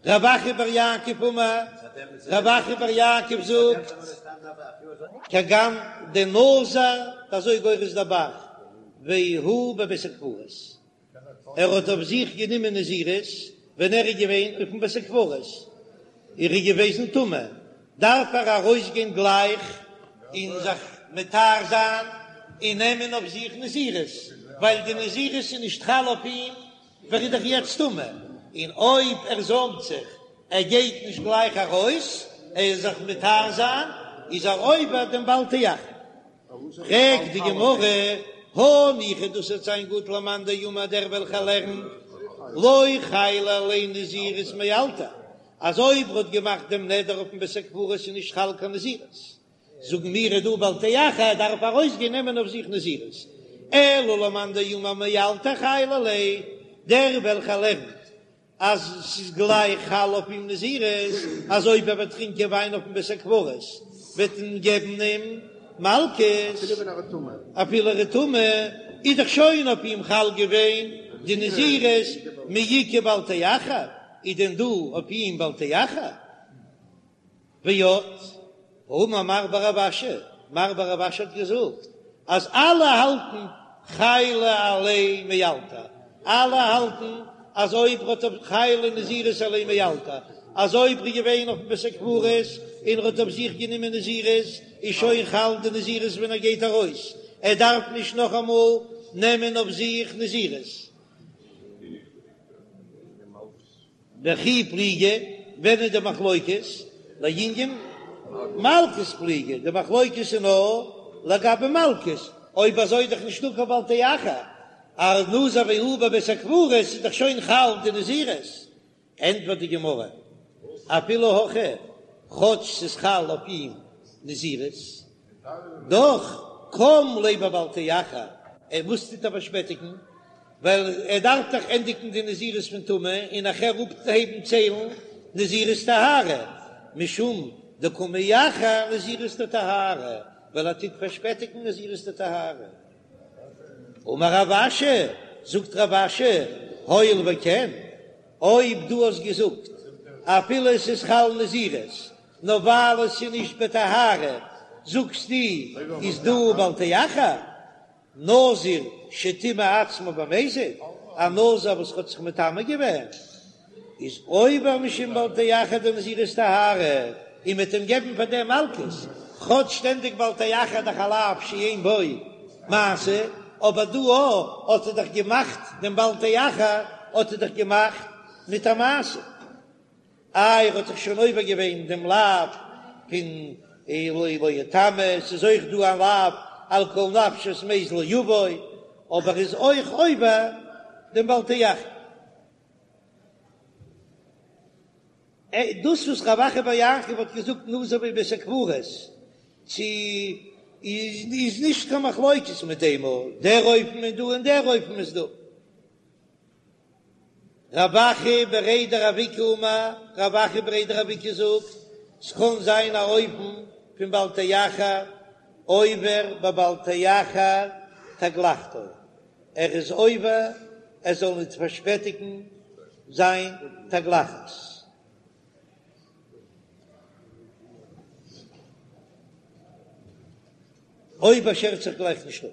רב אחא בר יעקב אמר, רב אחא בר יעקב זאגט, כגון דנזר, אזוי גורס דער ב"ח, והוא בבית הקברות, ער האט אויף זיך גענומען נזירות ווען ער איז געווען אויפן בית הקברות, ער איז געוועזן טמא, דארף ער ארויסגיין גלייך און זיך מטהר זיין און נעמען אויף זיך נזירות, ווייל די נזירות איז נישט חל אויף אים ווייל ער איז דאך יעצט טמא, און אויב ער זוימט זיך, ער גייט נישט גלייך ארויס, ער איז זיך מטהר זיין, איז ער עובר דעם בל תאחר. פרעגט די גמרא, הניחא דאס וועט זיין גוט למאן דאמר דער וועלכער לערנט לא חיילא עליה נזירות מאלתר, אז אויב ער האט געמאכט דעם נדר אויפן בית הקברות איז נישט חל קיין נזירות, זאגן מיר איז דא בל תאחר דארף ארויסגיין נעמען אויף זיך נזירות, אלא למאן דאמר מאלתר חיילא עליה, דער וועלכער לערנט אז ס'איז גלייך חל אויף אים נזירות, אז אויב ער וועט טרינקען וויין אויפן בית הקברות וועט מען געבן אים מלקות, אפילו ער איז טמא, איז דאך שוין אויף אים חל געווען די נזירות, מי איכא בל תאחר, איז דען דא אויף אים בל תאחר? ועוד, האמר מר בר רב אשי, מר בר רב אשי האט געזאגט אז אלע האלטן חיילא עליה מאלתר, אלע האלטן אז אויב ר'האט אויף חיילא נזירות עליה מאלתר, אז אויב ר'איז געווען אויפן בית הקברות און ר'האט אויף זיך גענומען נזירות איז שוין חל די נזירות ווען ער גייט ארויס, ער דארף נישט נאכאמאל נעמען אויף זיך נזירות. בכי פליגי, ווען איז די מחלוקת? לענין מלקות פליגי, די מחלוקת איז נאר לגבי מלקות, אויב אזוי איז דאך נישטא קיין בל תאחר, אז נזר והוא בבית הקברות איז דאך שוין חל די נזירות, ענטפערט די גמרא, אפילו הכי, כאטש ס'איז חל אויף אים נזירות, דאך קם ליה בבל תאחר, ער וואס טוט ער פארשפעטיגן? ווייל ער דארף דאך ענדיגן די נזירות פון טומאה און נאכער אנהייבן ציילן נזירות טהרה, משום דקא מאחר נזירות דטהרה, ווייל ער טוט פארשפעטיגן נזירות דטהרה. אמר רב אשי, זאגט רב אשי, הואיל וכן, אויב דו האסט געזאגט אפילו עס איז חל נזירות, נאר ווייל עס איז נישט בטהרה, זאגסטו איז דא בל תאחר, נזיר שטימא עצמו במזיד, א נזיר וואס האט זיך מטמא געווען, איז עובר משום בל תאחר דנזירות טהרה, און מ'וועט אים געבן פאר דעם מלקות, כאטש שטענדיג בל תאחר דאך א לאו שאין בו מעשה, אבער דא האט ער דאך געמאכט דעם בל תאחר האט ער דאך געמאכט מיט א מעשה. איי ער האט דאך שוין עובר געווען דעם לאו פון לא לא יטמא, ס'איז אויך דא א לאו על כל נפשות מת לא יבוא, אבער איז אויך עובר דעם בל תאחר. דאס וואס רב אחא בר יעקב האט געזאגט נזיר בבית הקברות צו איז נישט קיין מחלוקת מיט דעם, דער אופן איז דא און דער אופן איז דא. רב אחא בריה דרב איקא אמר, רב אחא בריה דרב איקא זאגט, ס'קען זיין א אופן פון בל תאחר עובר בבל תאחר תגלחתו, ער איז עובר ער זאל ניט פארשפעטיגן זיין תגלחת. אויב ער שערט זיך גלייך נישט אפ.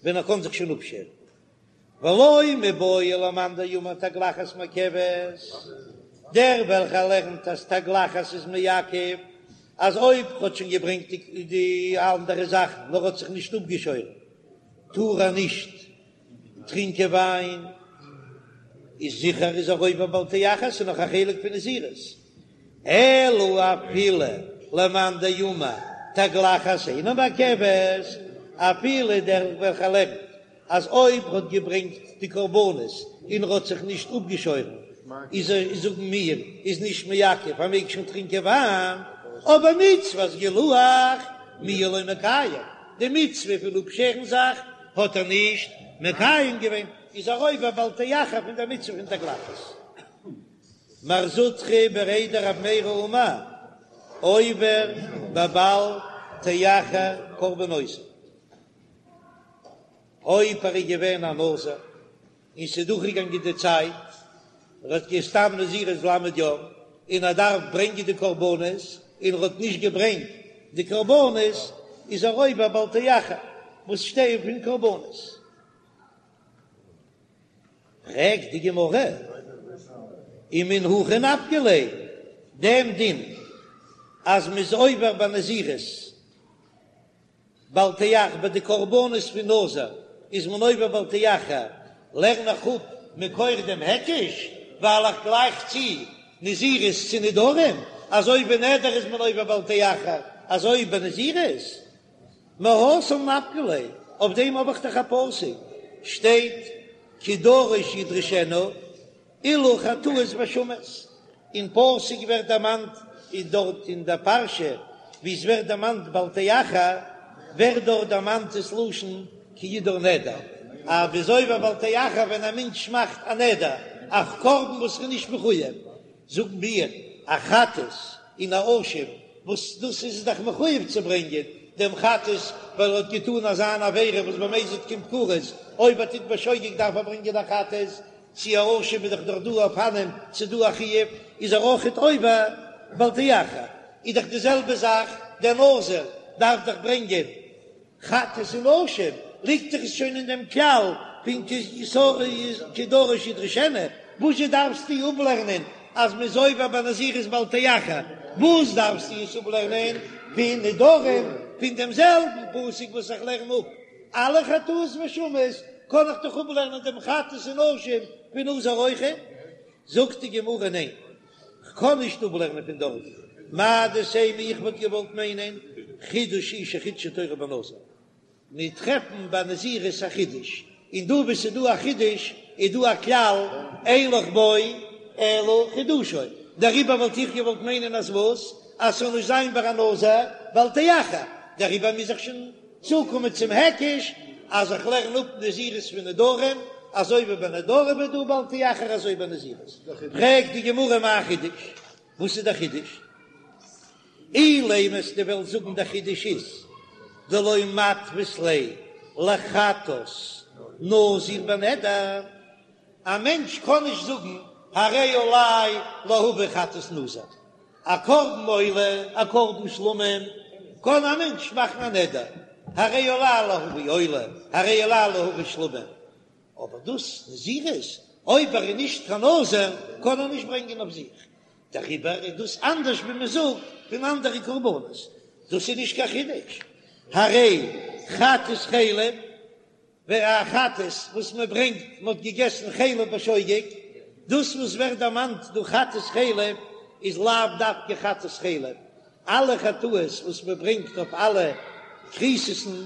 ווען ער קען זיך שוין אפשערן. ולא מיבעיא למאן דאמר תגלחת מעכבת, דער וועלכער לערנט אז תגלחת איז מעכב, אז אויב ר'האט שוין געברענגט די אנדערע זאכן נאר האט זיך נישט אפגעשוירן טאר ער נישט טרינקען וויין, איז זיכער איז ער עובר בל תאחר, ס'איז נאך א חלק פון נזירות. אלא אפילו למאן דאמר תגלחת אינה מעכבת, אפילו דער וועלכער לערנט אז אויב ר'האט געברענגט די קרבנות און ר'האט זיך נישט אפגעשוירן איז ער זאגן מיר איז נישט מעכב ער מעג שוין טרינקען וויין, אבער מצות גילוח מיהא לא מקיים, די מצוה פון אפשערן זיך האט ער נישט מקיים געווען, איז ער עובר בל תאחר פון דער מצוה פון תגלחת. מר זוטרא בריה דרב מרי אמר, עובר בבל תאחר קרבנותיו. אויב ער איז געווען א נזיר און ס'איז דורכגעגאנגען די צייט. ער האט סתם נזירות ל' יום און ער דארף ברענגען די קרבנות און ער האט נישט געברענגט די קרבנות איז ער עובר בל תאחר וואס שטייען פון קרבנות. פרעגט די גמרא, ומן הכא נפקא ליה, דעם דין אז מ'איז עובר ביי נזירות בל תאחר ביי די קרבנות פון נזיר איז מען עובר בל תאחר, לערן איך אפ מכח דעם היקש, ווייל איך גלייך צו נזירות צו נדרים, אזוי ביי נדר איז מען עובר בל תאחר, אזוי ביי נזירות. מהתם נפקא ליה, אויף דעם האב איך דאך א פסוק, שטייט כי דרוש ידרשנו, אלו חטאות ואשמות, אין פסוק ווערט דערמאנט אין דארט אין דער פרשה ווי עס ווערט דערמאנט בל תאחר, ווערט דארט דערמאנט דאס לשון כי ידור נדר, אז מ'איז עובר בל תאחר ווען א מענטש מאכט א נדר, א קרבן וואס איז נישט מחויב, זאגן מיר א חטאת און א אשם וואס דאס איז דאך מחויב צו ברענגען דעם חטאת ווייל ער האט געטאן אזא אן עבירה וואס במזיד קומט כרת, אויב ער טוט בשוגג דארף ער ברענגען א חטאת, צו א אשם איז דאך דאך דא אופנים ס'איז דא א חיוב איז ער אויכעט עובר בל תאחר, איז דאך די זעלבע זאך דער נזיר דארף דאך ברענגען חטאת און אשם, ליגט דאך עס שוין אין דעם כלל פון כי דרוש ידרשנו, וואזשע דארפסטו אפלערנען אז מ'איז עובר ביי נזירות בל תאחר, וואס דארפסטו עס אפלערנען פון נדרים, פון דעם זעלבן פסוק וואס איך לערן אפ אלע חטאות ואשמות, קען איך דאך אפלערנען דעם חטאת און אשם פון נזיר אויכעט? זאגט די גמרא ניין, כ'קען נישט אפלערנען פון דארט, מהו דתימא איך וואלט געוואלט מיינען חידוש הוא שחידשה תורה בנזיר, מיר טרעפן ביי נזירות א חידוש, און דא וואו ס'איז דא א חידוש איז דא א כלל אין לך בו אלא חידושו, דעריבער וואלט איך געוואלט מיינען אז וואס? אז ס'זאל נישט זיין ביי א נזיר בל תאחר, דעריבער מוז איך שוין צוקומען צום היקש אז איך לערן אפ נזירות פון נדרים, אזוי ווי ביי נדרים איז דא בל תאחר אזוי ביי נזירות. פרעגט די גמרא מאי חידוש? וואס איז דער חידוש? אילימא אז דו וועסט זאגן דער חידוש איז דלא מתפיס ליה לחטאת נזיר בנדר, א מענטש קען נישט זאגן הרי עלי להביא חטאת נזיר, א קרבן עולה, א קרבן שלמים, קען א מענטש מאכן א נדר, הרי עלי להביא עולה, הרי עלי להביא שלמים, אבער דאס נזירות, אויב ער איז נישט קיין נזיר, קען ער נישט ברענגען אויף זיך, דעריבער איז דאס אנדערש ווי מען זאגט פון אנדערע קרבנות, דאס איז נישט קיין חידוש, הרי חטאת חלב. ווער א חטאת וואס מען ברענגט מען האט געגעסן חלב בשוגג, דאס וואס ווערט דערמאנט דא חטאת חלב איז לאו דווקא חטאת חלב, אלע חטאות וואס מען ברענגט אויף אלע כריתות'ן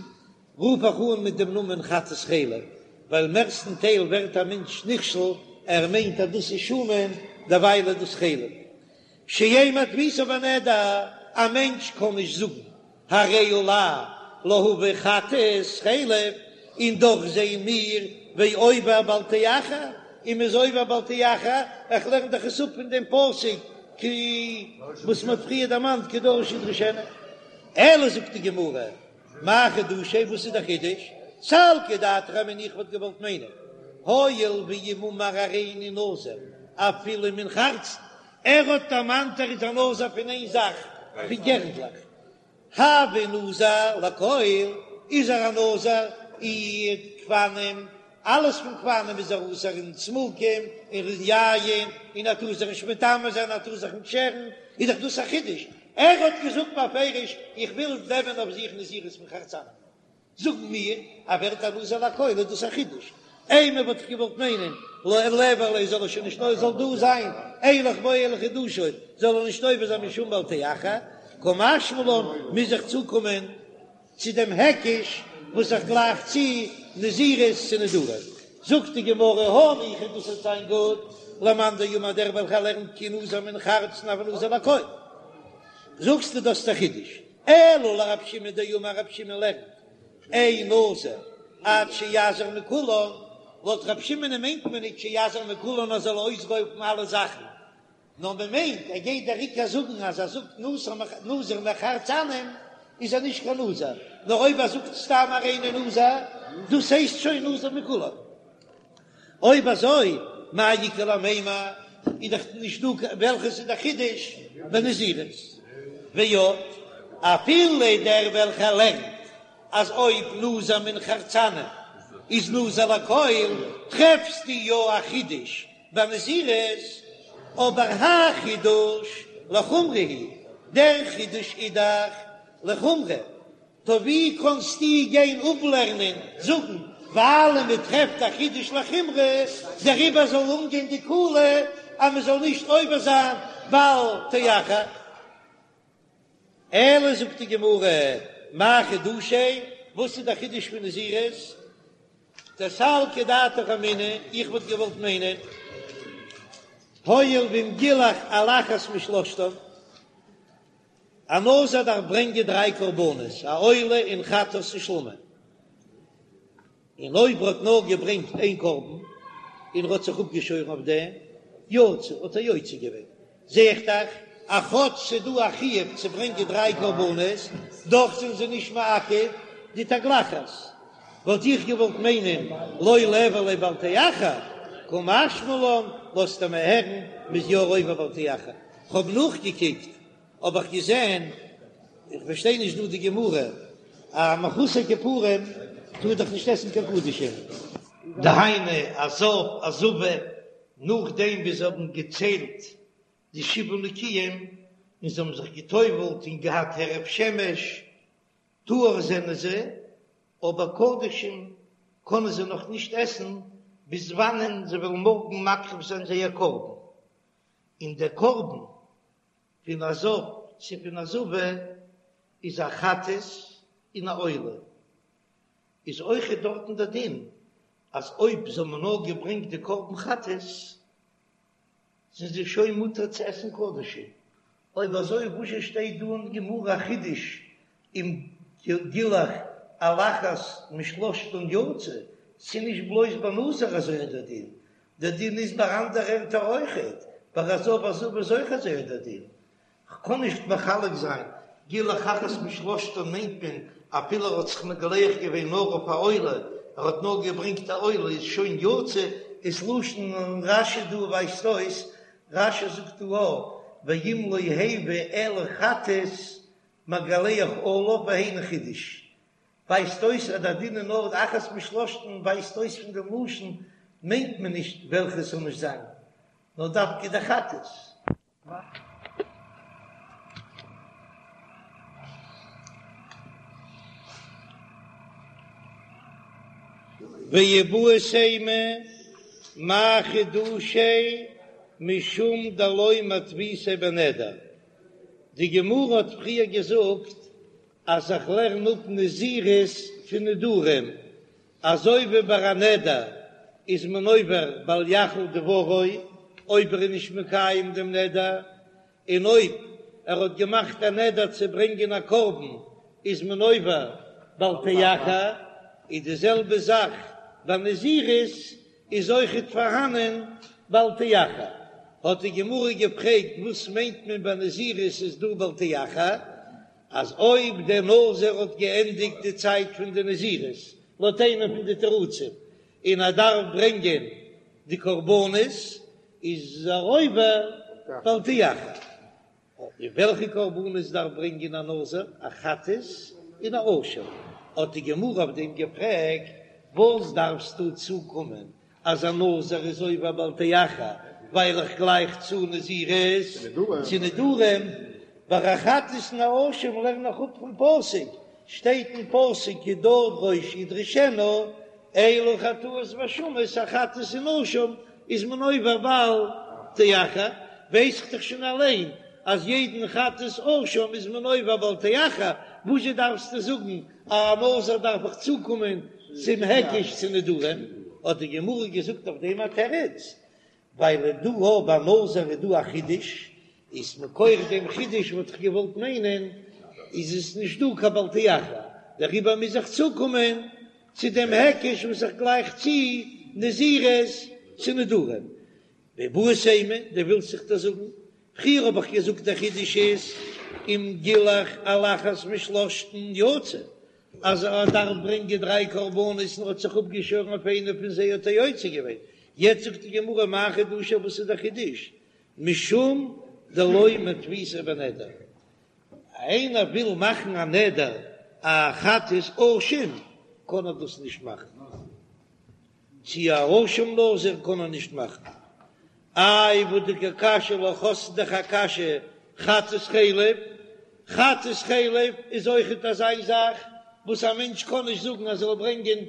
רוף איך אן מיט דעם נאמען חטאת חלב, ווייל מערסטן טייל ווערט א מענטש נכשל ער מיינט אז דאס איז שומן דערווייל איז דאס חלב. שאין מתפיסה בנדר, א מענטש קען נישט זאגן הרי עלי להביא חטאת חלב, און דאך זעען מיר ועובר בל תאחר, און מ'איז עובר בל תאחר, איך לערן דאך עס אפ פון דעם פסוק כי וואס מ'האט פריער דערמאנט כי דרוש ידרשנו. אלא זאגט די גמרא, מאי חידושיה, וואס איז דער חידוש? סלקא דעתך אמינא איך וואלט געוואלט מיינען, הואיל ואם אמר הריני נזיר אפילו מן חרצן, ער האט דערמאנט ער איז א נזיר פון איין זאך, פון גערנדלעך. הוי נזיר לכל, איז ער א נזיר אין גפנים, אלעס פון גפנים איז ער אסור און צימוקים און יין, און ער טאר זיך נישט מטמא זיין, ער טאר זיך נישט שערן, איז דאך דאס א חידוש, ער האט געזאגט בפירוש איך וויל נעמען אויף זיך נזירות פון חרצנים. זאגן מיר אז ווערט א נזיר לכל איז דאס א חידוש, אימא וואלט איך געוואלט מיינען לא ליעבור ליה זאל ער שוין נישט זאל דא זיין אין לך בו אלא חידושו זאל ער נישט עובר זיין משום בל תאחר, קא משמע לן מוז איך צוקומען צו דעם היקש וואס איך גלייך צו נזירות צו נדרים, זאגט די גמרא הניחא דאס וועט זיין גוט למאן דאמר דער וועלכער לערנט כי נזיר מן חרצן הוי נזיר לכל, זאגסטו דאס איז א חידוש. אלא לרב שמעון דאמר רב שמעון לערנט אין נזיר עד שיזיר מכולן, לויט רב שמעונ'ען מיינט מען נישט שיזיר מכולן אז ער זאל אויסרויפן אלע זאכן, נאר מען מיינט ער גייט דער עיקר זאגן אז ער זאגט נזיר מחרצנים איז ער נישט קיין נזיר, נאר אויב ער זאגט סתם הריני נזיר דאס הייסט שוין נזיר מכולן. אויב אזוי מאי איכא למימר? איז דאך נישט דא וועלכעס איז דער חידוש בנזירות. ועוד, אפילו דער וועלכער לערנט אז אויב נזיר מן חרצנים איז נזיר לכל, טרעפסטו יא א חידוש בנזירות, אבער האי חידוש לחומרא הוא, דער חידוש איז דאך לחומרא, טא ווי קאנסטו גיין אפלערנען זאגן ווייל מען טרעפט א חידוש לחומרא דעריבער זאל אנגיין די קולא אז מען זאל נישט עובר זיין בל תאחר? אלא זאגט די גמרא, מאי חידושיה, וואס איז דער חידוש פון נזירות? דסלקא דעתך אמינא, איך וואלט געוואלט מיינען, הואיל ואם גילח על אחת משלושתן, א נזיר דארף ברענגען דריי קרבנות, א עולה און חטאת און שלמים, און אויב ער האט נאר געברענגט איין קרבן און ער האט זיך אפגעשוירן אויף דעם, יצא, האט ער יוצא געווען. זע איך דאך אז כאטש ס'איז דא א חיוב צו ברענגען דריי קרבנות, דאך זענען זיי נישט מעכב די תגלחת. וואלט איך געוואלט מיינען לא ליעבור ליה בל תאחר, קא משמע לן, לאזט ער מיר הערן מ'איז יא עובר בל תאחר. כ'האב נאכגעקוקט האב איך געזען, איך פארשטיי נישט דא די גמרא, א מחוסר כיפורים טאר דאך נישט עסן קיין קדשים. דהיינו א זב א זבה נאכדעם ווי זיי האבן געציילט די שבעה נקיים און זיי האבן זיך גע'טובל'ט און געהאט הערב שמש, טהור זענען זיי, אבער קדשים קענען זיי נאך נישט עסן ביז וואנען זיי וועלן מארגן מקריב זיין זייער קרבן, און דער קרבן פון א זב צו פון א זבה איז א חטאת און א עולה, איז אויכעט דארטן דער דין אז אויב זיי האבן נאר געברענגט די קרבן חטאת זענען זיי שוין מותר צו עסן קדשים, אויב אזוי וואזשע שטייט דא אין גמרא א חידוש אם גילח על אחת משלושתן יצא, ס'איז נישט בלויז ביי נזיר אזוי דער דין, דער דין איז ביי אנדערע ערטער אויכעט, ביי א זב א זבה איז אויך אזוי דער דין. כ'קען נישט מחלק זיין, גילח אחת משלושתן מיינט מען אפילו ער האט זיך מגלח געווען נאר אויף א עולה, ער האט נאר געברענגט א עולה איז שוין יצא, איז לשון רש"י דא ווייזט אויס, רש"י זאגט דא א, ואם לא הביא אלא חטאת מגלח עליו והיינו חידוש, ווייזט אויס אז דער דין איז נאר אחת משלושתן ווייזט אויס פון דעם לשון מיינט מען נישט וועלכע עס זאל נישט זיין נאר דווקא די חטאת. ואיבעית אימא מאי חידושיה משום דלא מתפיסיה בנדר, די גמרא האט פריער געזאגט אז איך לערן אפ נזירות פון נדרים, אזוי ווי ביי א נדר איז מען עובר בל יחל דברו אויב ער איז נישט מקיים דעם נדר, און אויב ער האט געמאכט א נדר צו ברענגען א קרבן איז מען עובר בל תאחר, איז די זעלבע זאך ביי נזירות איז אויכעט פארהאנען בל תאחר, האט די גמרא געפרעגט וואס מיינט מען ביי נזירות איז דא בל תאחר, אז אויב דער נזיר האט געענדיגט די צייט פון די נזירות, לויט איינע פון די תירוצים, און ער דארף ברענגען די קרבנות, איז ער עובר בל תאחר. און וועלכע קרבנות דארף ברענגען א נזיר? א חטאת און א אשם. האט די גמרא אויף דעם געפרעגט, וואס דארפסטו צוקומען אז א נזיר איז עובר בל תאחר ווייל איך גלייך צו נזירות צו נדרים, ביי א חטאת און א אשם לערן איך אפ פון פסוק, שטייט אין פסוק כי תדרוש ידרשנו, אלו חטאות ואשמות, א חטאת און אשם איז מען עובר בל תאחר, ווייס איך דאך שוין אליין אז יעדן חטאת אשם איז מען עובר בל תאחר, וואזשע דארפסטו זאגן א נזיר דארף איך צוקומען צום היקש צו נדרים, האט די גמרא געזאגט אויף דעם א תירוץ, ווייל דא אויב ביי נזיר איז דא א חידוש, איז מכח דעם חידוש וואלט איך געוואלט מיינען איז עס נישט דא קיין בל תאחר, דעריבער מוז איך צוקומען צו דעם היקש וואס איך גלייך צו נזירות צו נדרים. ואיבעית אימא, דו ווילסט זיך דאס זאגן? פריער האב איך געזאגט דער חידוש איז אם גילח על אחת משלושתן יצא, אז ער דארף ברענגען דריי קרבנות און ער האט זיך אפגעשוירן אויף איינע פון זיי האט ער יוצא געווען, יעצט זאגט די גמרא מאי חידושיה וואס איז דער חידוש? משום דלא מתפיסא בנדר. איינער וויל מאכן א נדר א חטאת אשם קען ער דאס נישט מאכן, צו א אשם נזיר קען ער נישט מאכן. איי והא דקא קשיא לך האסט דאך א קשיא חטאת חלב, חטאת חלב איז אויכעט אזא זאך וואס א מענטש קען נישט זאגן אז ער זאל ברענגען,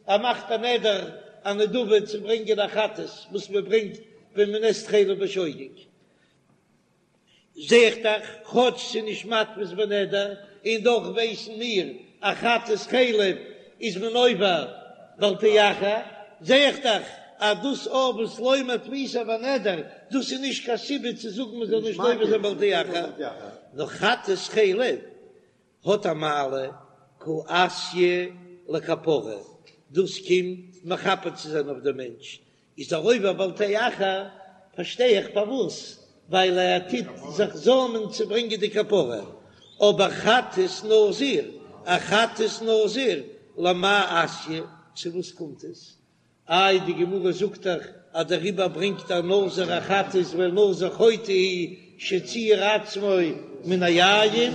ער מאכט א נדר א נדבה צו ברענגען א חטאת וואס מען ברענגט ווען מען עסט חלב בשוגג. זע איך דאך, כאטש ס'איז נישט מתפיס בנדר, און דאך ווייסן מיר אז חטאת חלב איז מען עובר בל תאחר, זע איך דאך אז דאס אויך וואס לא מתפיסא בנדר, דאס איז נישט קיין סיבה צו זאגן מען זאל נישט עובר זיין בל תאחר, נאר חטאת חלב האט א מעלה קא אתיא לכפרה, דאס קומט מכפר צו זיין אויף דעם מענטש, איז ער עובר בל תאחר, פארשטיי איך פארוואס, ווייל ער טוט זיך זאמען צו ברענגען די כפרה, אבער חטאת נזיר, א חטאת נזיר, למאי אתיא, צו וואס קומט עס? איי די גמרא זאגט דאך אז דעריבער ברענגט א נזיר א חטאת ווייל נזיר חוטא הוא שציער עצמו מן היין,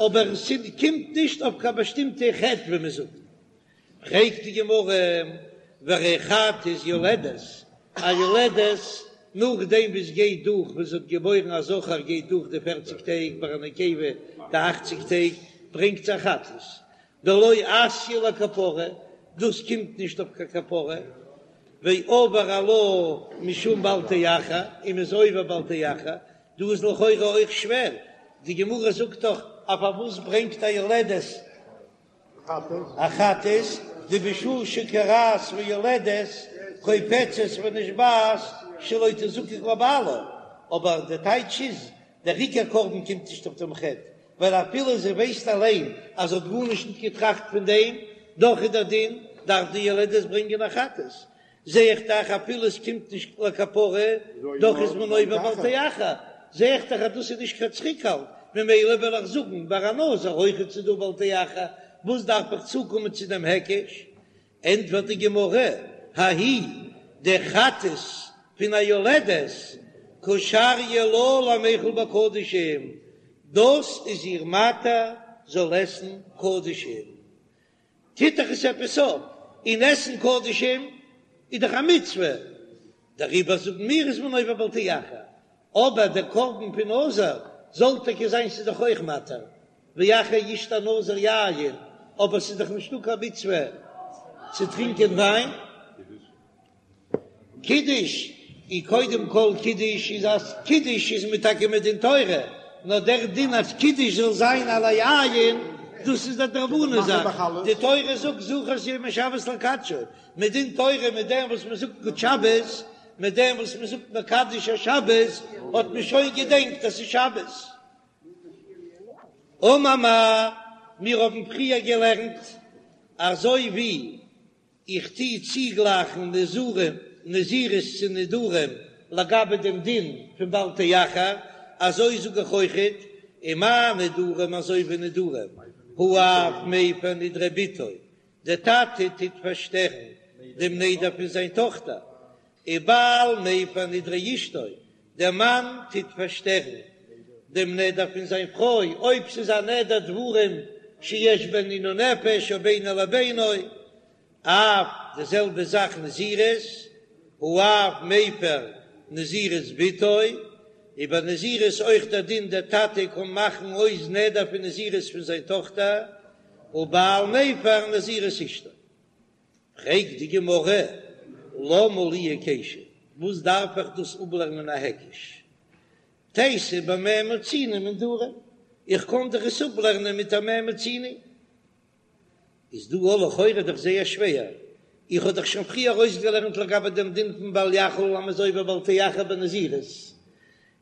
אבער עס קומט נישט אויף קיין באשטימטע חטא ווי מען זאגט. פרעגט די גמרא, והרי חטאת יולדת, א יולדת נאכדעם ווי עס גייט דורך ווען זי האט געבוירן א זכר גייט דורך די פערציג טעג ביי א נקבה די אכציג טעג ברענגט זי א חטאת, דלא אתיא לכפרה, דאס קומט נישט אויף קיין כפרה, ועבר עלה משום בל תאחר, און מ'איז עובר בל תאחר, דא איז לכאורה אויך שווער, די גמרא זאגט דאך אז פארוואס ברענגט א יולדת א חטאת, דבשעה שכורעת ויולדת קופצת ונשבעת שלא תזקק לבעלה, אבער די טייטש איז, דער עיקר קרבן קומט נישט אויף דעם חטא, ווייל אפילו זי ווייסט אליין אז זי האט גארנישט נישט געטראכט פון דעם, דאך איז דער דין, דארף די יולדת ברענגען א חטאת. זע איך דאך אפילו עס קומט נישט לכפרה, דאך איז מען עובר בל תאחר, זע איך דאך אז דאס איז נישט קיין צוריקהאלט, ממילא וועל איך זאגן ביי א נזיר אויכעט ס'איז דא בל תאחר, וואס דארף איך צוקומען צו דעם היקש? ענטפערט די גמרא, ההיא די חטאת פון א יולדת קא שריא לה למיכל בקדשים, דאס איז איר מתיר זאל עסן קדשים, טוט דאך עס עפעס אויף, און עסן קדשים איז דאך א מצוה, דעריבער זאגן מיר איז מען עובר בל תאחר, אבער דער קרבן פון נזיר זאל טאקע זיין ס'איז דאך אויך מתיר, ואחר ישתה הנזיר יין, אבער ס'איז דאך נישטא קיין מצוה צו טרינקען וויין. קידוש איז קודם כל קידוש איז אז קידוש איז מען טאקע מדין תורה, נאר דער דין אז קידוש זאל זיין על היין דאס איז א דרבנן זאך, די תורה זאגט זכור את יום השבת לקדשו, מדין תורה מיט דעם וואס מען זאגט גוט שבת, מיט דעם וואס מען זאגט מקדש השבת האט מען שוין געדענקט אז ס'איז שבת. אמר מר, מיר האבן פריער געלערנט אזוי ווי איך טו צוגלייכן נזירים, נזירות צו נדרים לגבי דעם דין פון בל תאחר, אזוי זאג איך אויכעט, ומה נדרים אזוי ווי נדרים, האב מפר נדרי בתו, דער טאטע טוט פארשטערן דעם נדר פון זיין טאכטער, ובעל מפר נדרי אשתו, דער מאן טוט פארשטערן דעם נדר פון זיין פרוי, אויב ס'איז א נדר דברים שיש בהן עינוי נפש או בינו לבינו, אף די זעלבע זאך נזירות, האב מפר נזירות בתו, איז ביי נזירות אויך דער דין דער טאטע קען מאכן אויס נדר פון נזירות פון זיין טאכטער, ובעל מפר נזירות אשתו. פרעגט די גמרא, למה לי היקשא, וואס דארף איך דאס אפלערנען א היקש? תיתי במה מצינו מנדרים, איך קען דאך עס אפלערנען מיט א מה מצינו. איז דא לכאורה דאך זייער שווער, איך האב דאך שוין פריער ארויסגעלערנט לגבי דעם דין פון בל יחל אז מ'איז עובר בל תאחר בנזירות,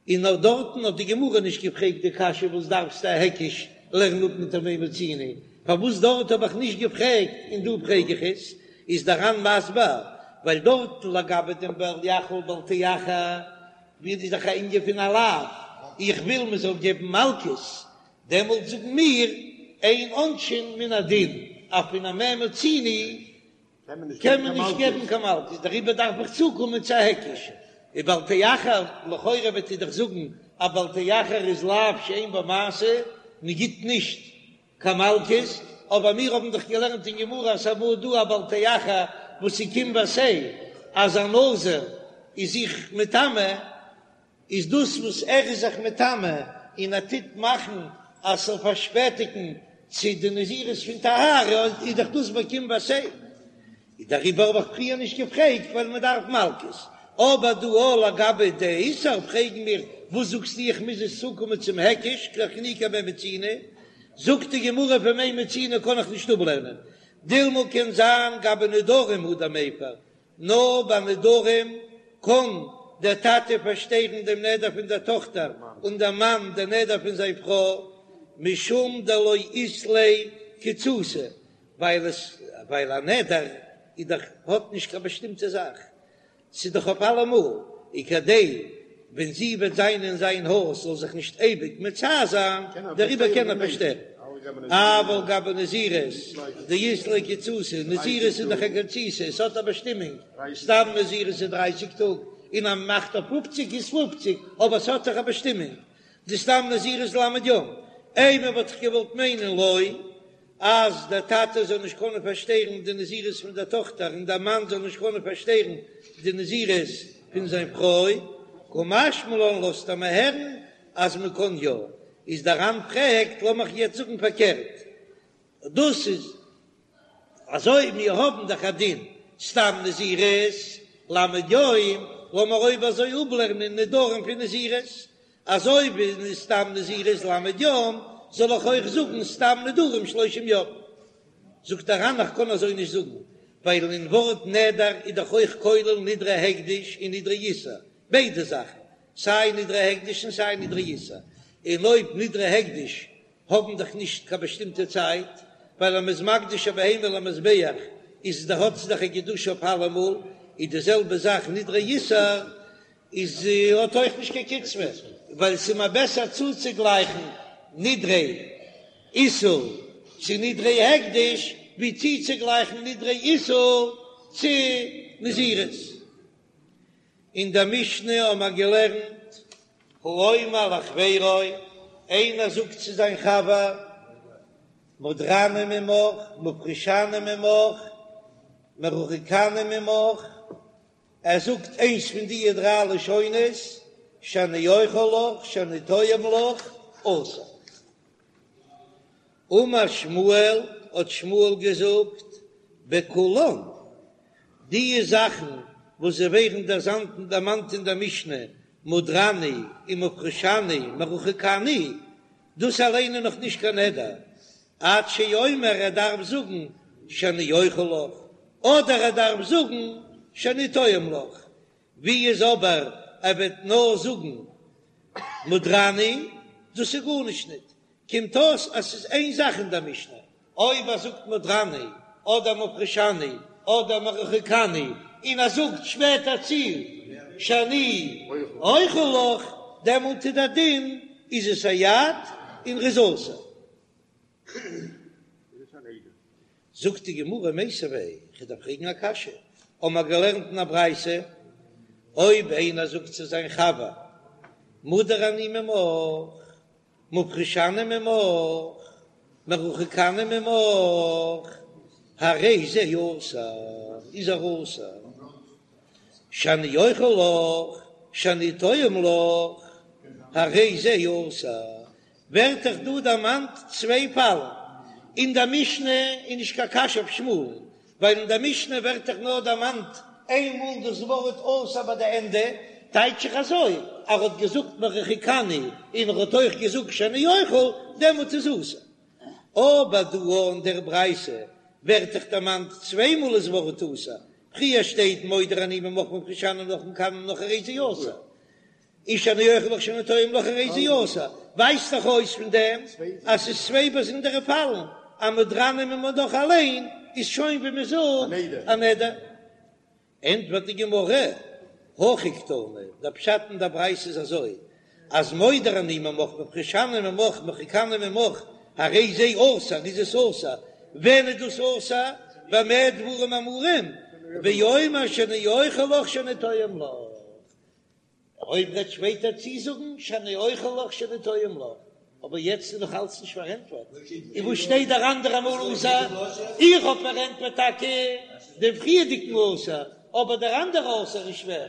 און נאר דארטן האט די גמרא נישט געפרעגט די קשיא וואס דארפסטו א היקש לערן אפ מיט א מה מצינו, פארוואס דארט האב איך נישט געפרעגט און דא פרעג איך עס, איז דער ר"ן מסביר ווייל דארט לגבי דעם בל יחל בל תאחר ווי איז דאך א ענין פון א לאו, איך וויל מען זאל געבן מלקות, דעמאלט זאגן מיר אין עונשין מן הדין, אז פון א מה מצינו קען מען נישט געבן קיין מלקות, דעריבער דארף איך צוקומען צו א היקש. און בל תאחר, לכאורה וועט איר דאך זאגן אז בל תאחר איז לאו שאין בו מעשה, מען גיט נישט קיין מלקות, אבער מיר האבן דאך געלערנט אין גמרא אז ס'אמאל דא א בל תאחר וואס איז קום ועשה, אז א נזיר איז זיך מטמא, איז דאס וואס ער איז זיך מטמא און ער טוט מאכן אז ס'זאל פארשפעטיגן צו די נזירות פון טהרה, איז דאך דאס ביי קום ועשה. איז דעריבער האב איך פריער נישט געפרעגט ווייל מען דארף מלקות, אבער דא אויך לגבי די איסור פרעגן מיר וואס זאגסטו איך מוז עס צוקומען צום היקש לאחינוקי מה מצינו, זאגט די גמרא פון מה מצינו קען איך נישט אפלערנען, דילמא קען זיין גבי נדרים הוא דמיפר, נאר ביי נדרים קען דער טאטע פארשטערן דעם נדר פון דער טאכטער און דער מאן דער נדר פון זיין פרוי, משום דלא אית ליה קיצותא, ווייל עס ווייל א נדר איז דאך האט נישט קיין באשטימטע זאך, ס'איז דאך אויף אלעמאל, און כדי ווען זי וועט זיין אין זיין הויז זאל זיך נישט אייביג מצער זיין, דעריבער קען ער פארשטערן. אבל גבי נזירות דאית ליה קיצותא, נזירות איז דאך א קיצותא, עס האט א באשטימונג, סתם נזירות איז דרייסיג טאג, און אז מ'מאכט אויף פופציג איז פופציג, אבער עס האט דאך א באשטימונג, די סתם נזירות ל' יום, אימא וואלט איך געוואלט מיינען לא. אז דער טאטע זאל נישט קענען פארשטערן די נזירות פון דער טאכטער און דער מאן זאל נישט קענען פארשטערן די נזירות פון זיין פרוי, קא משמע לן לאזט ער מיר הערן אז מען קען יא, איז דער ר"ן פרעגט, לאמיך יעצט זאגן פארקערט, דאס איז אזוי מיר האבן דאך א דין סתם נזירות ל' יום, לאמיר אויב אזוי אפלערנען נדרים פון נזירות, אזוי ווי סתם נזירות ל' יום, זאל איך אויך זאגן סתם נדרים שלושים יום? זאגט דער ר"ן איך קען אזוי נישט זאגן, ווייל אין ווארט נדר איז דאך אויך כולל נדרי הקדש און נדרי איסור, ביידע זאכן, סיי נדרי הקדש און סיי נדרי איסור, און אויב נדרי הקדש האבן דאך נישט קיין באשטימטע צייט, ווייל אז מ'איז מקדיש א בהמה למזבח איז דאך האט זי דאך א קדושה אויף אלעמאל, איז די זעלבע זאך נדרי איסור, איז האט אויך נישט קיין קצבה, ווייל ס'איז מיר בעסער צוצוגלייכן נדרי איסור צו נדרי הקדש, ווי צוצוגלייכן נדרי איסור צו נזירות. אין דער משנה האבן מיר געלערנט, האומר לחבירו, איינער זאגט צו זיין חבר, מודרני ממך, מופרשני ממך, מרוחקני ממך, ער זאגט איינס פון די דריי לשונות, שאני אוכל לך, שאני טועם לך, אסור. אמר שמואל, האט שמואל געזאגט, בכולן, די זאכן וואס זיי ווערן דערמאנט אין דער משנה, מודרני ומופרשני מרוחקני, דאס אליין איז נאך נישט קיין נדר, עד שיאמר ער דארף זאגן שאני אוכל לך, אדער ער דארף זאגן שאני טועם לך, ווי איז אבער ער וועט נאר זאגן מודרני, דאס איז גארנישט ניט, קומט אויס אז ס'איז איין זאך אין דער משנה, אויב ער זאגט מודרני אדער מופרשני אדער מרוחקני און ער זאגט שפעטער צו שאני אוכל לך, דעמאלט איז דער דין איז עס א יד און ר'איז אסור. זאגט די גמרא מיתיבי, כ'דארף פרעגן א קשיא, האמער געלערנט אין א ברייתא, אויב איינער זאגט צו זיין חבר מודר אני ממך, מופרשני ממך, מרוחקני ממך, הרי זה אסור, איז ער אסור, שאני אוכל לך, שאני טועם לך, הרי זה אסור, ווערט דאך דא דערמאנט צוויי פאלן, אין דער משנה איז נישט קיין קשיא אויף שמואל'ן, ווייל אין דער משנה ווערט דאך נאר דערמאנט איין מאל דאס ווארט אסור ביי די ענדע, טייטש איך אזוי, ער האט געזאגט מרוחקני און ער האט אויך געזאגט שאני אוכל, דעמאלט איז אסור. אבער דא אין דער ברייתא ווערט דאך דערמאנט צוויי מאל דאס ווארט אסור, פריער שטייט מודר אני ממך מופרשני ממך מרוחקני ממך הרי זה אסור, און שאני אוכל לך שאני טועם לך הרי זה אסור, ווייזט דאך אויס פון דעם אז ס'איז צוויי באזונדערע פאלן, אז מודרני ממך אליין איז שוין ווי מ'זאגט א נדר. ענטפערט די גמרא, הכי קתני, דער פשט אין דער ברייתא איז אזוי, אז מודר אני ממך מופרשני ממך מרוחקני ממך הרי זה אסור, איז עס אסור, ווען איז דאס אסור? במה דברים אמורים? באומר שאני אוכל לך שאני טועם לך. אויב וועט שפעטער צוזאגן שאני אוכל לך שאני טועם לך, אבער יעצט איז נאך אלץ נישט פארענטפערט, און וואס שטייט דער אנדערע מאל אסור? איך האב פארענטפערט טאקע דעם פריערדיגן אסור, אבער דער אנדערע אסור איז שווער,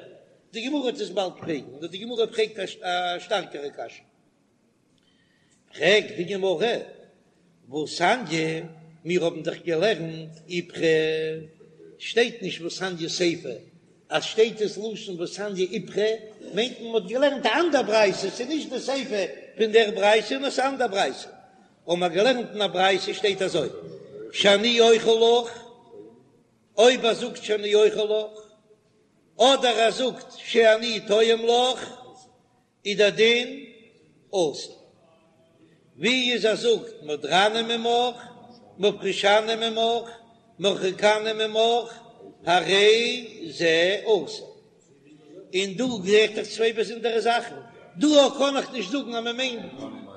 די גמרא וועט עס באלד פרעגן, נאר די גמרא פרעגט א שטארקערע קשיא. פרעגט די גמרא, והתניא, מיר האבן דאך געלערנט איפכא, שטייט נישט והתניא סיפא, אז שטייט עס לשון והתניא איפכא, מיינט מען מ'האט געלערנט א אנדער ברייתא, ס'איז נישט די סיפא פון דער ברייתא נאר ס'איז א אנדער ברייתא, האבן מיר געלערנט אין א ברייתא שטייט אזוי, שאני אוכל לך, אויב ער זאגט שאני אוכל לך, אדער ער זאגט שאני טועם לך, איז דער דין אסור. ווי איז ער זאגט מודרני ממך, מפרישני ממך, מרחיקני ממך, הרי זה אסור. און דא רעדט איך צוויי באזונדערע זאכן. דא קען איך נישט זאגן אז מען מיינט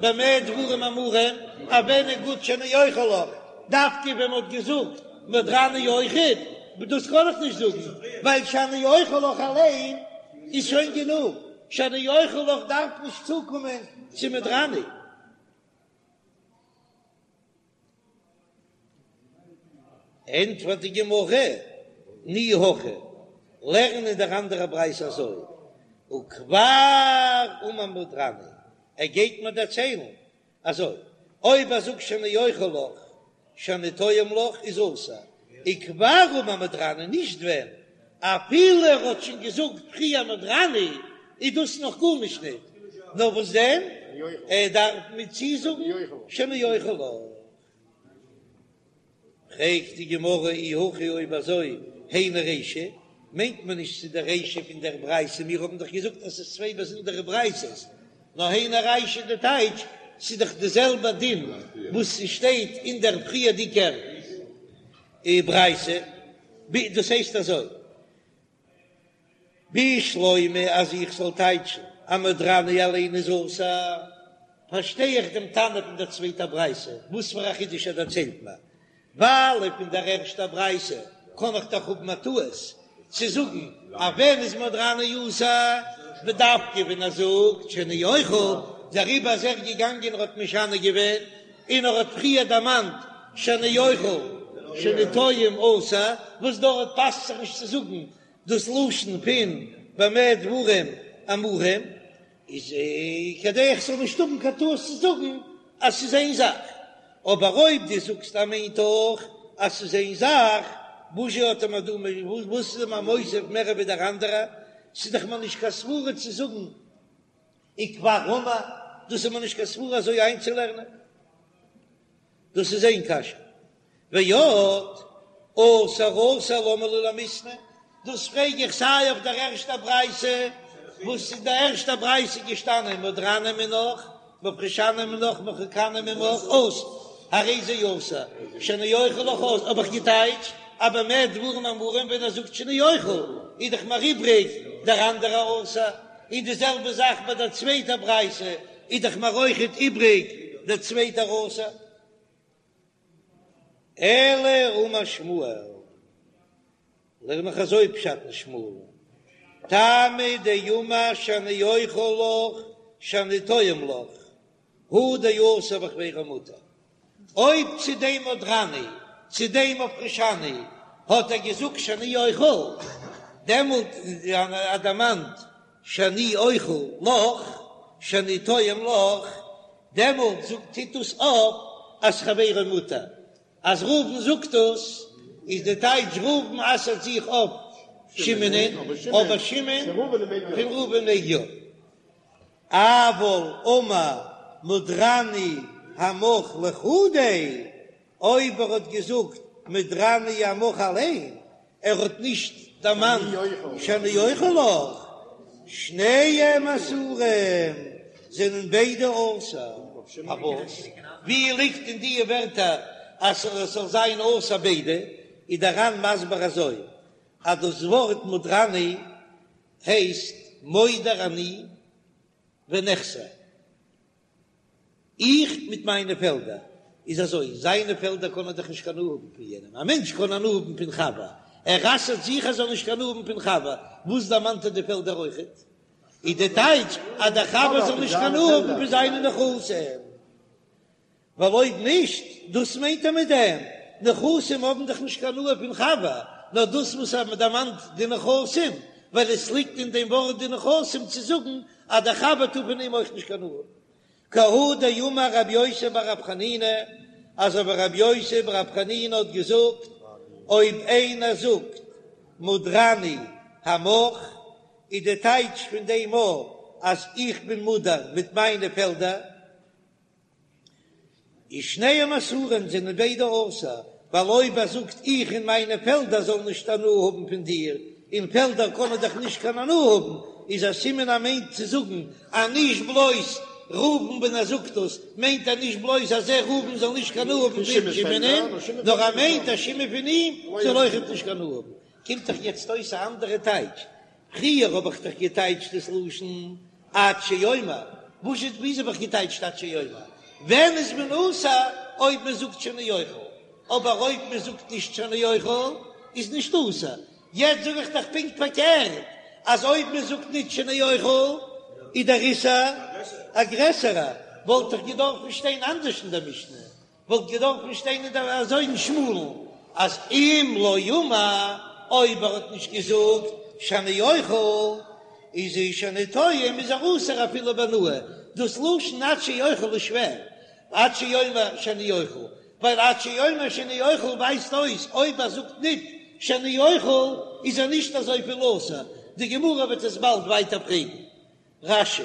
במה דברים אמורים, אז ווען איז גוט שאני אוכל לך, דווקא ווען מען האט געזאגט מודרני אויכעט, דאס קען איך נישט זאגן, ווייל שאני אוכל לך אליין איז שוין גענוג. שאני אוכל לך דארף נישט צוקומען צו מודרני. ענטפערט די גמרא, תני הכי, לערן אין דער אנדערע ברייתא אזוי, וכבר אמר מודרני, ער גייט מיר דערציילן אזוי, אויב ער זאגט שאני אוכל לך, שאני טועם לך איז אסור, וכבר אמר מודרני נישט ווען, אפילו ער האט שוין געזאגט פריער מודרני איז דאס נאך גארנישט ניט, נאר וואס דען, ער דארף מיר צוזאגן שאני אוכל לך. פרעגט די גמרא אי הכי אויב אזוי היינו רישא, מיינט מען נישט צו די רישא פון דער ברייתא, מיר האבן דאך געזאגט אז ס'איז צוויי באזונדערע ברייתות, נאר היינו רישא די טייטש, ס'איז דאך די זעלבע דין וואס ס'שטייט אין דער פריערדיגער ברייתא, דאס הייסט אזוי. בשלמא אז איך זאל טייטשן אז מודרני אליין איז אסור, פארשטיי איך דעם תנא פון דער צווייטער ברייתא, וואס פאר א חידוש ער דערציילט מיר, ווייל פון דער ערשטער ברייתא קען איך דאך האבן א טעות צו זאגן אז ווען איז מודרני אסור, בדווקא ווען ער זאגט שאני אוכל, דעריבער איז ער געגאנגען און האט משנה געווען, און ער האט פריער דערמאנט שאני אוכל שאני טועם אסור, וואס דארט פאסט זיך נישט צו זאגן דאס לשון פון במה דברים אמורים, איז כדי איך זאל נישט האבן קיין טעות צו זאגן אז ס'איז איין זאך, אבער אויב דו זאגסט אז מיינט אויך אז ס'איז איין זאך, וואזשע האט ער מיר דא וואס איז ער מיר מוסיף מער ווי דער אנדערע, ס'איז דאך מיר נישט קיין סברה צו זאגן וכבר אמר, דאס איז מיר נישט קיין סברה אזוי איינצולערנען. דאס איז איין קשיא. ועוד, אסור אסור למה לי למיתנא, דאס פרעג איך סיי אויף דער ערשטער ברייתא, וואס אין דער ערשטער ברייתא איז געשטאנען מודרני מינך, מפרישני מינך, מרחיקני ממך, אסור, הרי זה אסור, שאני אוכל לך אסור, האב איך געטייטשט, אז במה דברים אמורים ווען ער זאגט שאני אוכל, איז דאך מיר איבריג דער אנדערער אסור. און די זעלבע זאך ביי דער צווייטער ברייתא, איז דאך מיר אויכעט איבריג דער צווייטער אסור. אלא אמר שמואל, לערן איך אזוי פשט אין שמואל, טעמא דאמר שאני אוכל לך שאני טועם לך, הוא דאסור וחבירו מותר. אויב צו דעם מודרני, צו דעם מפרישני, האט ער געזאגט שאני אוכל, דעמאלט ער דערמאנט שאני אוכל לך, שאני טועם לך, דעמאלט זאגט טוט דאס אויף אז חברו מותר. אז ראובן זאגט דאס, איז די טייטש ראובן אסר'ט זיך אויף שמעונ'ען, אבער שמעון פון ראובן מעג יא. אבל אמר מודרני עמך לחודיה, אויב ער האט געזאגט מודרני עמך אליין, ער האט נישט דערמאנט שאני אוכל לך, שניהם אסורים, זענען ביידע אסור. פארוואס? ווי ליגט אין די ווערטער אז עס זאל זיין אסור ביידע? איז דער ר"ן מסביר אזוי, אז דאס ווארט מודרני הייסט מודר אני ונכסי, איך מיט מיינע פעלדער, איז אזוי, זיינע פעלדער קען ער דאך נישט קיין הנאה האבן פון יענעם, א מענטש קען הנאה האבן פון חבר, ער אסר'ט זיך ער זאל נישט קיין הנאה האבן פון חבר, וואס דערמאנט ער די פעלדער אויכעט? איז די טייטש אז דער חבר זאל נישט קיין הנאה האבן פון זיינע נכסים, ווייל אויב נישט, דאס מיינט ער מיט דעם, נכסים האבן דאך נישט קיין הנאה פון חבר, נאר דאס וואס ער דערמאנט די נכסים, ווייל עס ליגט אין דעם ווארט די נכסים צו זאגן אז דער חבר טאר פון אים אויך נישט קיין הנאה האבן. כי הא דאמר רבי יוסי בר רב חנינא, אזוי ווי רבי יוסי בר רב חנינא האט געזאגט, אויב איינער זאגט מודרני עמך, איז די טייטש פון דעם א אז איך בין מודר מיט מיינע פעלדער, איז שניהם אסורים זענען ביידע אסור, ווייל אויב ער זאגט איך און מיינע פעלדער זאלן נישט הנאה האבן פון דיר, און פעלדער קענען דאך נישט קיין הנאה האבן, איז א סימן ער מיינט צו זאגן אז נישט בלויז ראובן ווען ער זאגט דאס מיינט ער נישט בלויז אז ער ראובן זאל נישט קיין הנאה האבן פון שמעונ'ען, נאר ער מיינט אז שמעון פון אים זאל אויכעט נישט קיין הנאה האבן. קומט דאך יעצט אויס א אנדערע טייטש, פריער האב איך דאך געטייטשט דאס לשון עד שיאמר, וואס איז וויאזוי האב איך געטייטשט עד שיאמר? ווען איז מען אסור אויב מען זאגט שאני אוכל, אבער אויב מען זאגט נישט שאני אוכל איז נישט אסור, יעצט זאג איך דאך פונקט פארקערט אז אויב מען זאגט נישט שאני אוכל איז דער איסור א גרעסערע, וואלט דאך געדארפן שטיין אנדערש אין דער משנה, וואלט געדארפן שטיין אין דער אזוי אין שמואל'ן אז אם לא אמר, אויב ער האט נישט געזאגט שאני אוכל, איז ער שאני טועם איז ער אסור אפילו בהנאה, דאס לשון עד שיאכל איז שווער, עד שיאמר שאני אוכל, ווייל עד שיאמר שאני אוכל ווייזט אויס אויב ער זאגט ניט שאני אוכל איז ער נישט אזויפיל אסור, די גמרא וועט עס באלד ווייטער פרעגן. רש"י.